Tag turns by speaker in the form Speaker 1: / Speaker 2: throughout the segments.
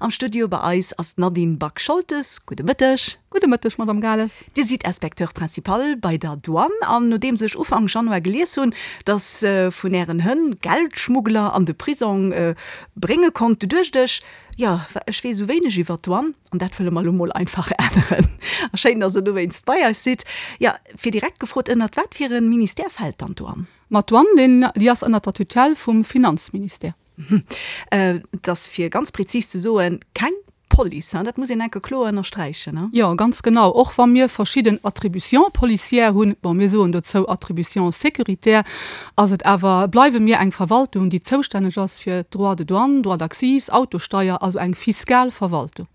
Speaker 1: Am Studio bei eis ass d'Nadine Back-Scholtes. Gudde Mëtteg.
Speaker 2: Gudde Mëtteg, Madame Gales.
Speaker 1: Dir sidd Inspecteur principal bei der Douane an nodeems ech Ufank Januar gelies hunn, dass vun Ären Hënn Geldschmuggler an de Prisong brénge konnt, du duecht ech, jo, ech weess esou wéineg iwwer d'Douane an dat wëlle mer elo mol einfach änneren. A schéin, dass Der dowéinst bei eis sidd. Jo, fir direkt gefrot, ënnert wat fir e Ministère fält dann d'Douane?
Speaker 2: Ma d'Douane, déi ass ënnert der Tutelle vum Finanzministère.
Speaker 1: Et ass, fir ganz prezis ze soen, keng Police, hein? Dat muss een enke kloer ënnersträichen, hein?
Speaker 2: Jo, ganz genau. Och wa mir verschidden Attributions policières hunn, bon, mir soen dozou Attributions sécuritaires, ass et awer, bleiwe mir eng Verwaltung, déi zoustänneg ass fir d'Droits de douane, Droits d'accise, Autosteier, also eng fiskal Verwaltung.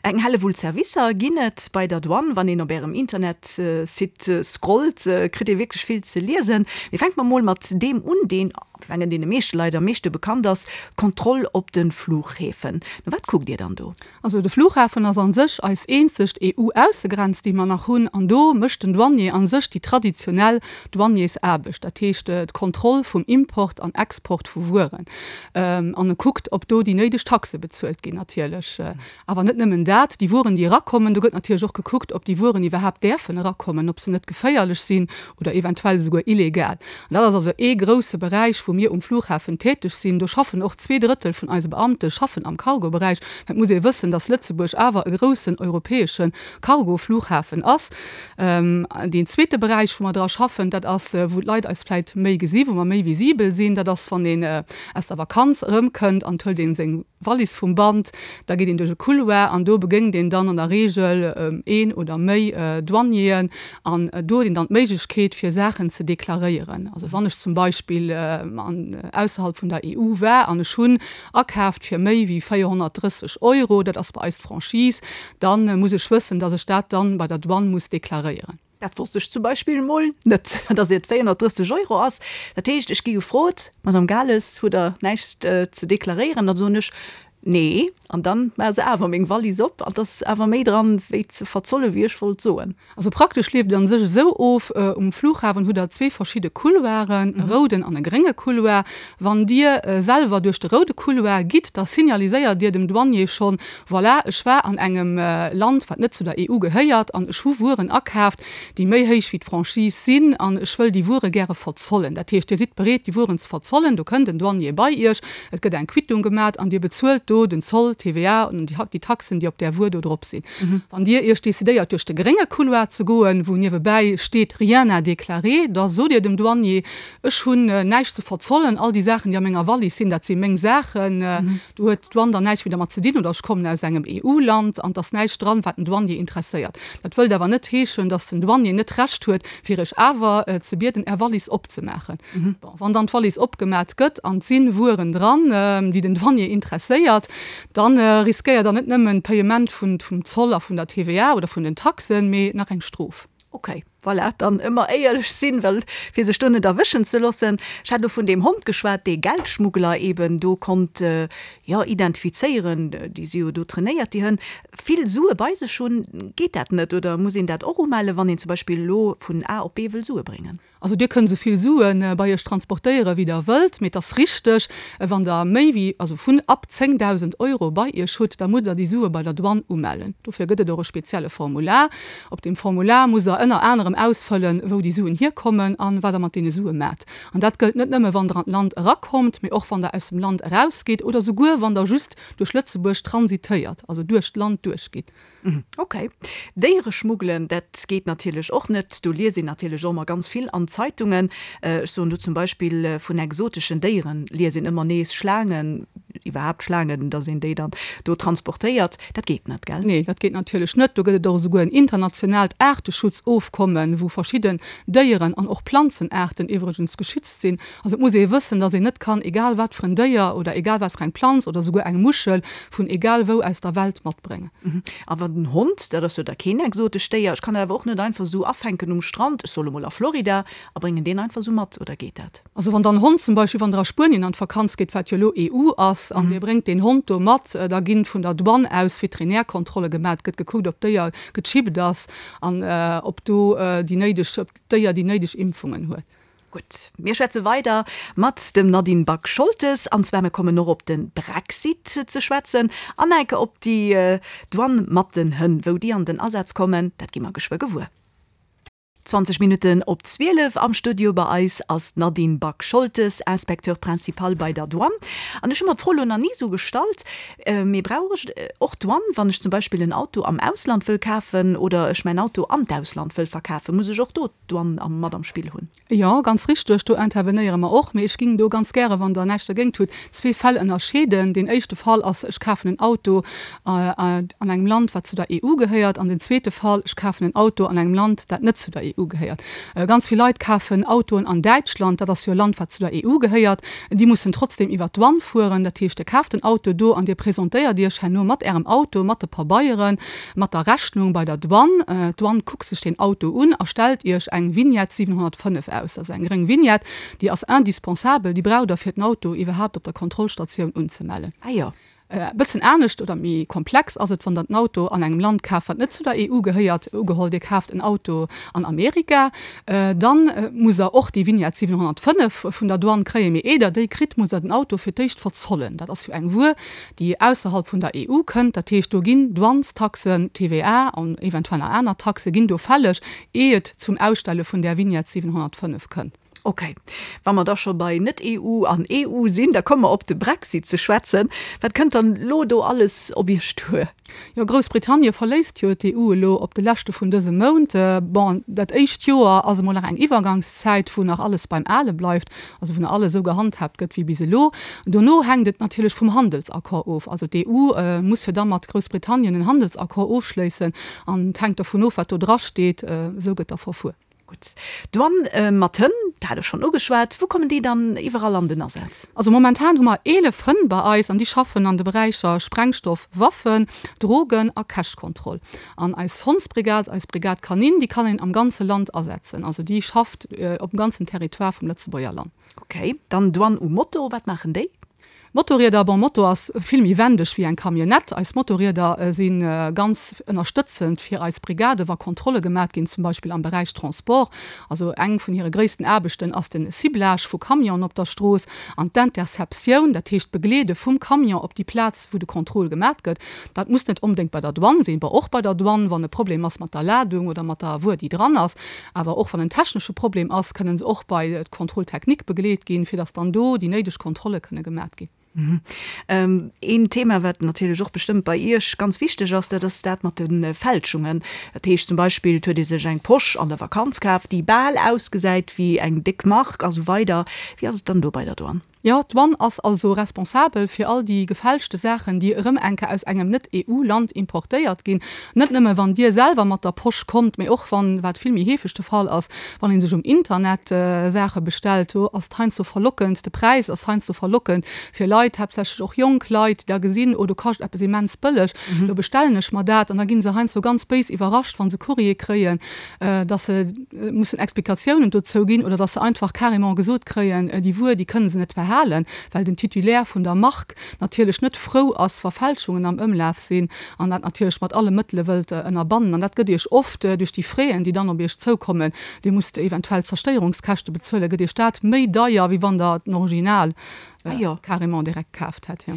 Speaker 1: Eng Hellewull Servicer ginn et bei der Douane. Wann een op Ärem Internetsite scrollt, kritt ee wierklech vill ze liesen. Mee fänke mer mol mat deem un, deen, ech mengen, deene meeschte Leit am meeschte bekannt ass, d'Kontroll op de Fluchhäfen. No wat kuckt Dir dann do?
Speaker 2: Also de Flughafen ass a sech eis eenzegt EU-Aussegrenz, déi mer nach hunn. An do mécht den Douanier a sech déi traditionell Douaniersaarbecht, dat heescht d'Kontroll vum Import an Export vu Wueren. An e kuckt, ob do déi néideg Taxe bezuelt ginn natierlech. Awer net nëmmen dat, déi Wueren, déi erakommen, do gëtt natierlech och gekuckt, ob déi Wueren iwwerhaapt däerfen erakommen, ob se net geféierlech sinn oder eventuell esouguer illegal. An dat ass also ee grousse Beräich, wou mir um Flughafen täteg sinn. Do schaffen och 2/3 vun eise Beamte schaffen am Cargo-Beräich. Well et muss ee wëssen, dass Lëtzebuerg awer e groussen europäesche Cargo-Flughafen ass. Deen zweete Beräich, wou mer dra schaffen, dat ass, wou d'Leit eis vläit méi gesi, wou mer méi visibel sinn, dat ass, wann een aus der Vakanz erëmkënnt an et huelt ee seng Wallis vum Band, da geet een duerch e Couloir an do begéngt een dann an der Reegel een oder méi Douanieren an do huet een dann d'Méiglechkeet, fir Saachen ze deklaréieren. Also wann ech zum Beispill ausserhalb vun der EU war an ech hunn akaaft fir méi wéi 430 Euro, dat ass bei eis d'Franchise, da muss ech wëssen, dass ech dat dann bei der Douane muss deklaréieren.
Speaker 1: Dat wosst ech zum Beispill emol net, dass et 430 Euro ass. Dat heescht, ech gi gefrot, Madame Gales, hutt Der näischt ze deklaréieren? Dann soen ech, Nee. An dann maache se awer meng Wallis op an et ass awer méi dran, wéi ze verzolle wéi ech wollt soen.
Speaker 2: Also praktesch leeft et an sech esou of, Um Flughafen hutt der zwee verschidde Couloiren, e rouden an e grénge Couloir. Wann Dir selwer duerch de roude Couloir gitt, da signaliséiert Dir dem Douanier schonn, Voilà, ech war an engem Land, wat net zu der EU gehéiert, an ech hu Wueren akaaft, déi méi héich wéi d'Franchise sinn, an ech wëll déi Wuere gäre verzollen. Dat heescht, Dir sidd bereet, déi Wueren ze verzollen. Do kënnt en Douanier bei Iech, et gëtt eng Quittung gemat an Dir bezuelt do den Zoll, d'TVA an déi Taxen, déi op där Wuer do drop sinn. Wann Dir Iech decidéiert duerch de grénge Couloir ze goen, wou niewebäi steet Rien à déclarer, da sot Dir dem Douanier, Ech hunn näischt ze verzollen, all déi Saachen, déi a menger Wallis sinn, dat si meng Saachen, do huet d'Douane dann näischt méi dermat ze dinn, oder ech kommen aus engem EU-Land an et ass näischt dran, wat den Douanier interesséiert. Dat wëllt awer net heeschen, datt den Douanier net d'Recht huet, fir Iech awer ze bieden, Är Wallis opzemaachen. Bon, wann dann d'Wallis opgemat gëtt an et si Wueren dran, déi den Douanier interesséiert, Dann riskéiert der net nëmmen d'Payement vum Zoll a vun der TVA oder vun den Taxen, mee nach eng Strof.
Speaker 1: Ok, voilà, dann ëmmer éierlech sinn, well fir sech do net erwëschen ze loossen. Ech hat elo vun deem Hond geschwat, dee Geldschmuggler eben do konnt, jo, identifizéieren. Déi si jo do trainéiert, déi Hënn. Vill Sue bei sech hunn, geet dat net? Oder muss een dat och umellen, wann een zum Beispill elo vun A op B wëll Sue bréngen?
Speaker 2: Also Dir kënnt esou vill Sue bei Iech transportéiere wéi Der wëllt, mee et ass richteg, wann Der méi wéi, also vun ab 10.000 Euro bei Iech hutt, da musst Der déi Sue bei der Douane umellen. Dofir gëtt et och e spezielle Formular. Op deem Formular musst Der ënner anerem ausfëllen, wou déi Suen hierkommen an wat Der mat deene Sue maacht. An dat gëllt net nëmme wann Der an d'Land erakommt, mee och wann Der aus dem Land erausgitt oder souguer wann Der just duerch Lëtzebuerg transitéiert, also duerch d'Land duerchgitt.
Speaker 1: Ok. Déiere schmuggelen, dat geet natierlech och net. Do liest een natierlech och ëmmer ganz vill an Zeitungen. Ech soen do zum Beispill vun exoteschen Déieren liest een ëmmer nees, Schlaangen, iwwerhaapt Schlaangen, datt een déi dann do transportéiert. Dat geet net, gell?
Speaker 2: Nee, dat geet natierlech net. Do gëtt et och esouguer en internationaalt Aarteschutzofkommen, wou verschidden Déieren an och Planzenaarten iwwregens geschützt sinn. Also et muss ee wëssen, datt een net kann egal wat fir en Déier oder egal wat fir eng Planz oder esouguer eng Muschel vun egal wou aus der Welt matbréngen.
Speaker 1: A wann den Hond, dat ass jo da keen exotescht Déier, ech kann dat awer och net einfach esou afänken um Strand, ech soll emol a Florida, a bréngen deen einfach esou mat, oder geet dat?
Speaker 2: Also wann der en Hond zum Beispill, wann der a Spuenien an d'Vakanz geet, wat jo elo EU ass, an dir bréngt deen Hond do mat, da ginn vun der Douane aus Veterinärkontrolle gemaat, gëtt gekuckt ob d'Déier gechippt ass an ob do déi néideg, ob d'Déier déi néideg Impfungen huet.
Speaker 1: Gutt, mir schwätze weider mat dem Nadine Back-Scholtes, an zwar mir kommen och op de Brexit ze schwätzen an enke op déi Douane mat den Hënn. Wou déi an den Asaz kommen, dat gi mer geschwë gewuer. 20 Minutten op 12, am Studio bei eis ass d'Nadine Back-Scholtes, Inspecteur principal bei der Douane. An ech hu mer d'Fro elo nach ni esou gestallt, mee brauch ech och d'Douane, wann ech zum Beispill en Auto am Ausland wëll kafen oder ech mäin Auto an d'Ausland wëll verkafen? Muss ech och do d'Douane mat am Spill hunn?
Speaker 2: Jo, ganz richteg, do intervenéiere mer och. Mee ech ging do ganz gäre, wann Der näischt dergéint hutt, zwee Fäll ënnerscheeden. Deen éischte Fall ass, ech kafen en Auto an engem Land, wat zu der EU gehéiert. An den zweete Fall, ech kafen en Auto an engem Land, dat net zu der EU gehéiert. Ganz vill Leit kafen Autoen an Däitschland, dat ass jo e Land, wat zu der EU gehéiert. Déi mussen trotzdem iwwert d'Douane fueren. Dat heescht, Dir kaaft den Auto do an Dir presentéiert Iech herno mat Ärem Auto, mat de Pabeieren, mat der Rechnung bei der Douane. D'Douane kuckt sech deen Auto un a stellt Iech eng Vignette 705 aus. Dat ass eng gréng Vignette, déi ass indispensabel, déi braucht Der fir den Auto iwwerhaapt op der Kontrollstatioun unzemellen.
Speaker 1: Ah jo.
Speaker 2: E bëssen anescht oder méi komplex ass et, wann Der den Auto an engem Land kaaft, wat net zu der EU gehéiert. Ugeholl, Dir kaaft en Auto an Amerika, dann musst Der och déi Vignette 705 vun der Douane kréien. Mee eer Der déi kritt, musst Der den Auto fir d'éischt verzollen. Dat ass jo eng Wuer, déi ausserhalb vun der EU kënnt. Dat heescht, do ginn Douanestaxen, TVA an eventuell nach aner Taxe ginn do fälleg, eer et zum Ausstelle vun där Vignette 705 kënnt.
Speaker 1: Ok. Wa mer da scho bei Net-EU an EU sinn, da komme mer op de Brexit ze schwätzen. Wat kënnt dann elo do alles op Iech duer?
Speaker 2: Jo, Groussbritannie verléisst jo d'EU elo op de leschte vun dësem Mount. Bon, dat éischt Joer ass emol nach eng Iwwergangszäit, wou nach alles beim Ale bleift, also wou nach alles esou gehandhaabt gëtt wéi bis elo. Dono hänkt et natierlech vum Handelsaccord of. Also d'EU muss jo da mat Groussbritannien en Handelsaccord ofschléissen an et hänkt dovun of, wat do drasteet. Esou gëtt da verfuer.
Speaker 1: Gutt. D'Douane mat Hënn, dat hat ech schonn ugeschwat. Wou kommen déi dann iwwerall an den Asaz?
Speaker 2: Also momentan hu mer 11 Hënn bei eis an déi schaffen an de Beräicher Sprengstoff, Waffen, Drogen a Cash-Kontroll. An eis Hondsbrigad, eis Brigade canine, déi kann een am ganze Land asetzen. Also déi schafft op dem ganzen Territoire vum Lëtzebuerger Land.
Speaker 1: Ok. Dann Douane u Moto, wat maachen déi?
Speaker 2: Motorrieder, bon Moto ass vill méi wendeg wéi eng Camionnette. Eis Motorrieder si ganz ënnerstëtzend fir eis Brigade wa Kontrolle gemat ginn, zum Beispill am Beräich Transport. Also eng vun hire gréissten Aarbechten ass den Ciblage vu Camionen op der Strooss an d'Interceptioun, dat heescht d'Begleede vum Camion op déi Plaz wou de Contrôle gemat gëtt. Dat muss net onbedéngt bei der Douane sinn, bon och bei der Douane wann e Problem ass mat der Ladung oder mat der Wuer déi dran ass. Awer och wann en technesche Problem ass, kënnen se och bei d'Contrôle technique begleet ginn, fir dass dann do déi néideg Kontrolle kënne gemat ginn.
Speaker 1: Een Thema, wat natierlech och bestëmmt bei Iech ganz wichteg ass, dat ass dat mat de Fälschungen. Dat heescht zum Beispill, et huet ee sech eng Posch an der Vakanz kaf, déi bal ausgesäit wéi eng déck Mark a sou weider. Wéi ass et dann do bei der Douane?
Speaker 2: Jo, d'Douane ass also responsabel fir all déi gefälschte Saachen, déi erëm eng Kéier aus engem Net-EU-Land importéiert ginn. Net nëmme wann Dir selwer mat der Posch kommt, mee och wann, wat vill méi heefeg de Fall ass, wann ee sech um Internet Saache bestellt. Do ass et heiansdo verlockend, de Präis ass heiansdo verlockend fir Leit, haaptsächlech och jonk Leit, déi da gesinn, oh do kascht eppes immens bëlleg, do bestellen ech mer dat. An da gi se heiansdo ganz béis iwwerrascht, wa se Courrier kréien, dass se mussen Explikatiounen dozou ginn oder dass se einfach carrément gesot kréien, déi Wuer, déi kënne se net behalen, well den Titulaire vun der Mark natierlech net frou ass, wa Fälschungen am Ëmlaf sinn an dat natierlech mat alle Mëttele wëllt ënnerbannen. An dat gëtt Iech oft duerch déi Fräen, déi dann op Iech zoukommen, Dir musst eventuell Zerstéierungskäschte bezuelen, gëtt Iech dat méi deier, wéi wann Der den Original
Speaker 1: Ah jo.
Speaker 2: Carrément direkt kaaft hätt, jo.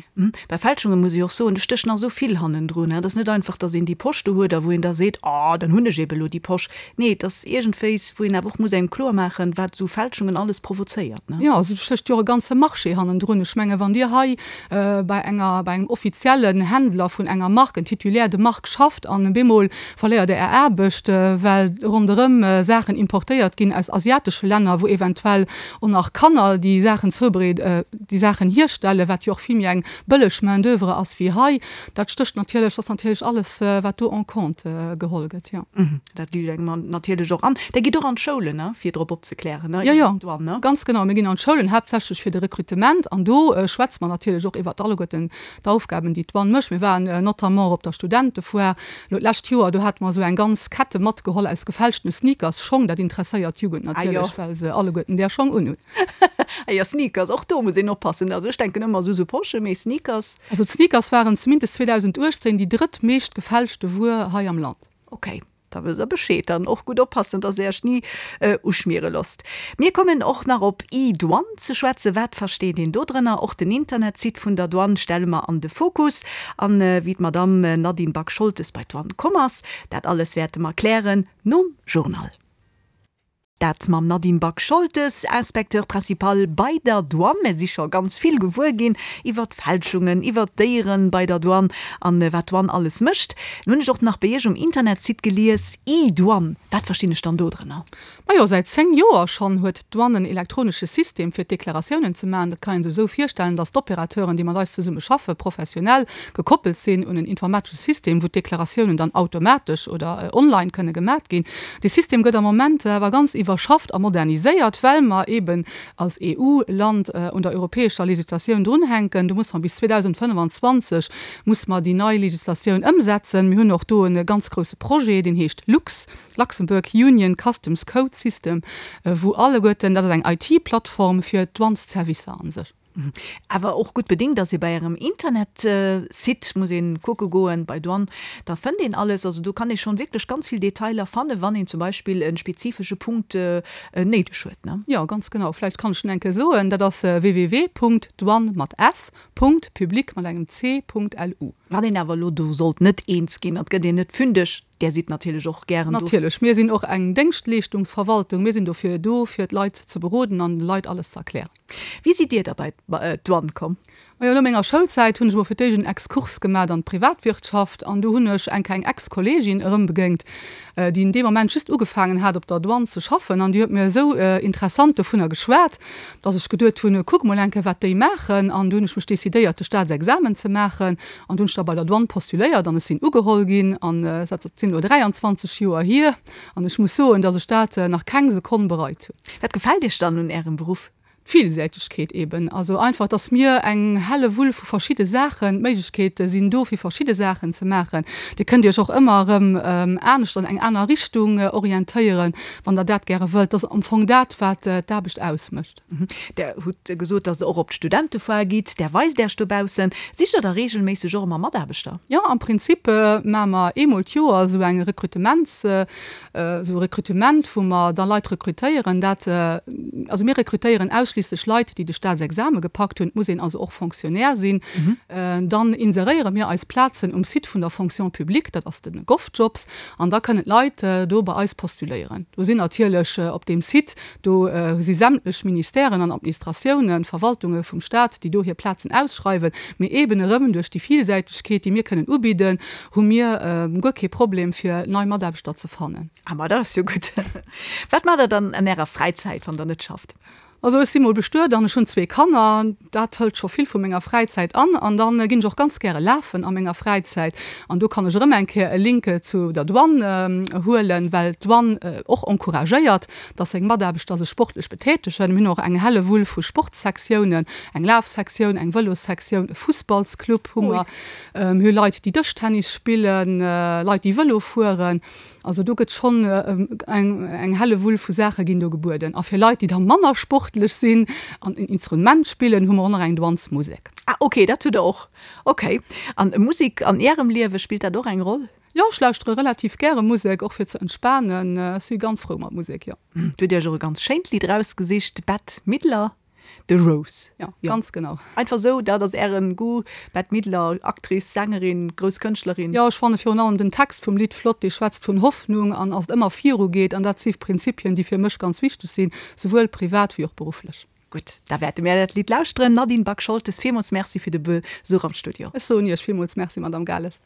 Speaker 1: Bei Fälschunge muss ech och soen, do stécht nach esou vill hannendrun. Et ass net einfach, datt een déi Posch do huet a wou een da seet, oh, dann hunn ech ebe elo déi Posch. Nee, et ass iergendwéis, wou een awer och muss engem kloer maachen, wat esou Fälschungen alles provozéiert, ne?
Speaker 2: Jo, also do stécht jo och e ganze Marché hannendrun. Ech menge wann Dir hei bei enger, bei engem offiziellen Händler vun enger Mark, en Titulaire de marque schafft an bemol verléiert Der Är Aarbecht, well ronderëm Saachen importéiert ginn aus asiatesche Länner, wou eventuell Och nach Kanner, déi Saachen zoubereed, déi Saachen hierstellen, wat jo och vill méi eng bëlleg Main d'oeuvre ass wéi hei. Dat stécht natierlech, dat ass natierlech alles, wat do en compte geholl gëtt, jo.
Speaker 1: Dat liicht engem natierlech och an. Der gitt och an d'Schoulen, ne, fir drop opzeklären, ne,
Speaker 2: Jo, jo, iwwer d'Douane, ne? ganz genau. Mir ginn an d'Schoulen, haaptsächlech fir de Rekrutement. An do schwätze mer natierlech och iwwer alleguerten d'Aufgaben, déi d'Douane mécht. Mir waren notamment och op der Studentefoire elo d'lescht Joer. Do hate mer esou eng ganz Kette matgeholl aus gefälschtene Sneakers, Schong. Dat interesséiert d'Jugend natierlech, well se alleguerten där Schong unhunn.
Speaker 1: Ah jo, Sneakers, och do muss een oppassen. Also ech denken ëmmer esou sou Poschen, mee Sneakers.
Speaker 2: Also d'Sneakers waren zumindest 2018 déi drëttmeescht gefälschte Wuer hei am Land.
Speaker 1: Ok. Da wësst der Bescheed. Dann och gutt oppassen, dass der Iech ni uschmiere losst. Mir kommen och nach op e-Douane ze schwätzen. Wat versteet een do drënner? Och den Internetsite vun der Douane stelle mer an de Fokus. An wéi d'Madamm Nadine Back-Scholtes bei d'Douane komm ass, dat alles wäerte mer klären nom Journal. Dat mam Nadine Back-Scholtes, Inspecteur principal bei der Douane. Mir si scho ganz vill gewuer ginn iwwer d'Fälschungen, iwwer d'Déieren bei der Douane an wat d'Douane alles mécht. Nun hunn ech och nach bei Iech um Internetsite gelies, E-Douane. Wat verstinn ech dann do drënner?
Speaker 2: Majo, säit 10 Joer schonn huet d'Douane en elektronesche System fir d'Deklaratiounen ze maachen. Dat kann ee sech esou virstellen, datt d'Opérateuren, déi mat eis zesumme schaffen, professionell gekoppelt sinn un en informatesche System, wou d'Deklaratiounen dann automatesch oder online kënne gemat ginn. Dee System gëtt am Moment awer ganz iwwerschafft a moderniséiert, well mer eeben als EU-Land un der europäescher Législatioun drunhänken. Do musse mer bis 2025 musse mer déi nei Législatioun ëmsetzen. Mir hunn och do e ganz grouse Projet, deen heescht LUCS, Luxembourg Union Customs Code System, wou alleguerten, dat ass eng IT-Plattform fir d'Douanesservicer a sech.
Speaker 1: Awer och gutt bedingt ass ee bei ärem Internetsite, muss een kucke goen bei Douane, da fënnt een alles. Also do kann ee schonn wierklech ganz vill Detailer fannen, wann een zum Beispill e spezifesche Punkt néideg huet, ne?
Speaker 2: Jo, ganz genau. Vläicht kann ech en eng Kéier soen, dat ass www.douane mat s. Public mat engem c. Lu.
Speaker 1: Wann een awer elo do sollt net eens ginn, et gëtt een net fündeg, Där sidd natierlech och gären
Speaker 2: do. Natierlech, mir sinn och eng Déngschtleeschtungsverwaltung. Mir sinn dofir do, fir d'Leit ze beroden an de Leit alles ze erklären.
Speaker 1: Wéi sidd Dir da bei d'Douane komm?
Speaker 2: Majo, no menger Schoulzäit hunn ech emol fir d'éischt en Exkurs gemat an d'Privatwirtschaft an do hunn ech eng kleng Ex-Kolleegin erëmbegéingt, déi in deem Moment just ugefaangen hat op der Douane ze schaffen an déi huet mir esou interessant dovunner geschwat, dass ech geduet hunn, kuck mol eng Kéier wat déi maachen an du hunn ech mech decidéiert de Staatsexamen ze maachen an du hunn ech da bei der Douane postuléiert an ech sinn ugeholl ginn an dat sinn elo 23 Joer hier. An ech muss soen, dass ech dat nach keng Sekonn bereit hunn.
Speaker 1: Wat gefält Iech dann un Ärem Beruff?
Speaker 2: D'Villsäitegkeet eben. Also einfach, dass mir eng helle Wull vu verschidde Saachen, d'Méiglechkeete sinn do fir verschidde Saachen ze maachen. Dir kënnt Iech och ëmmer erëm anescht an eng aner Richtung orientéieren, wann Der dat gäre wëllt. Dat ass am Fong dat, wat d'Aarbecht ausmécht.
Speaker 1: Der hutt gesot, dass Der och op d'Studentefoire gitt. Där weist Äech dobaussen. Sicht Der da reegelméisseg och ëmmer Mataarbechter?
Speaker 2: Jo, am Prinzip maache mer eemol d'Joer esou eng Rekrutements, esou e Rekrutement, wou mer da Leit rekrutéieren. Dat, also mir rekrutéieren ausschliisslech Leit, déi de Staatsexame gepackt hunn. Et muss een also och Fonctionnaire sinn. Dann inseréiere mir eis Plazen um Site vun der Fonction publique, dat ass de GovJobs, an da kënnen d'Leit do bei eis postuléieren. Do sinn natierlech op deem Site Do si sämtlech Ministèren an Administratiounen, Verwaltunge vum Stat, déi do hir Plazen ausschreiwen. Mee eeben erëm duerch déi Villsäitegkeet, déi mir kënnen ubidden, hu mir guer kee Problem, fir nei Mataarbechter ze fannen.
Speaker 1: Ah, ma dat ass jo gutt. Wat maacht Der dann an Ärer Fräizäit, wann Der net schafft?
Speaker 2: Also ech si mol bestuet an ech hunn zwee Kanner. Dat hëlt scho vill vu menger Fräizäit an. An da ginn ech och ganz gäre lafen a menger Fräizäit. An do kann ech erëm eng Kéier e Link zu der Douane huelen, well d'Douane och encouragéiert, dass seng Mataarbechter sech sportlech betätegen. Mir hunn och eng Hellewull vu Sportssektiounen, eng Lafsektioun, eng Vëlossektioun, e Fussballsclub hu mer. Mir hu Leit, déi Dëschtennis spillen, Leit, déi Vëlo fueren. Also do gëtt schonn eng Hellewull vu Saache ginn do gebueden. A fir Leit, déi da manner sportlech sinn an en Instrument spillen, hu mer och nach eng Douanesmusek.
Speaker 1: Ah ok, dat hutt der och. Ok. An Musek an Ärem Liewe, spillt dat och eng Roll?
Speaker 2: Jo, ech lauschtere relativ gäre Musek, och fir ze entspanen. Ech si ganz frou mat Musek, jo.
Speaker 1: Du hutt Iech och e ganz schéint Lidd erausgesicht, Bette Midler, The Rose.
Speaker 2: Jo, ganz genau.
Speaker 1: Einfach esou, dat ass Ären Goût, Bette Midler, Actrice, Sängerin, grouss Kënschtlerin.
Speaker 2: Jo, ech fanne virun allem den Text vum Lidd flott, dee schwätzt vun Hoffnung an ass et ëmmer viru geet. An dat si Prinzipien, déi fir mech ganz wichteg sinn, souwuel privat wéi och berufflech.
Speaker 1: Gutt, da wäerte mir dat Lidd lauschteren. Nadine Back-Scholtes, villmools Merci fir de Besuch am Studio.
Speaker 2: Ech soen Iech villmools Merci, Madame Gales.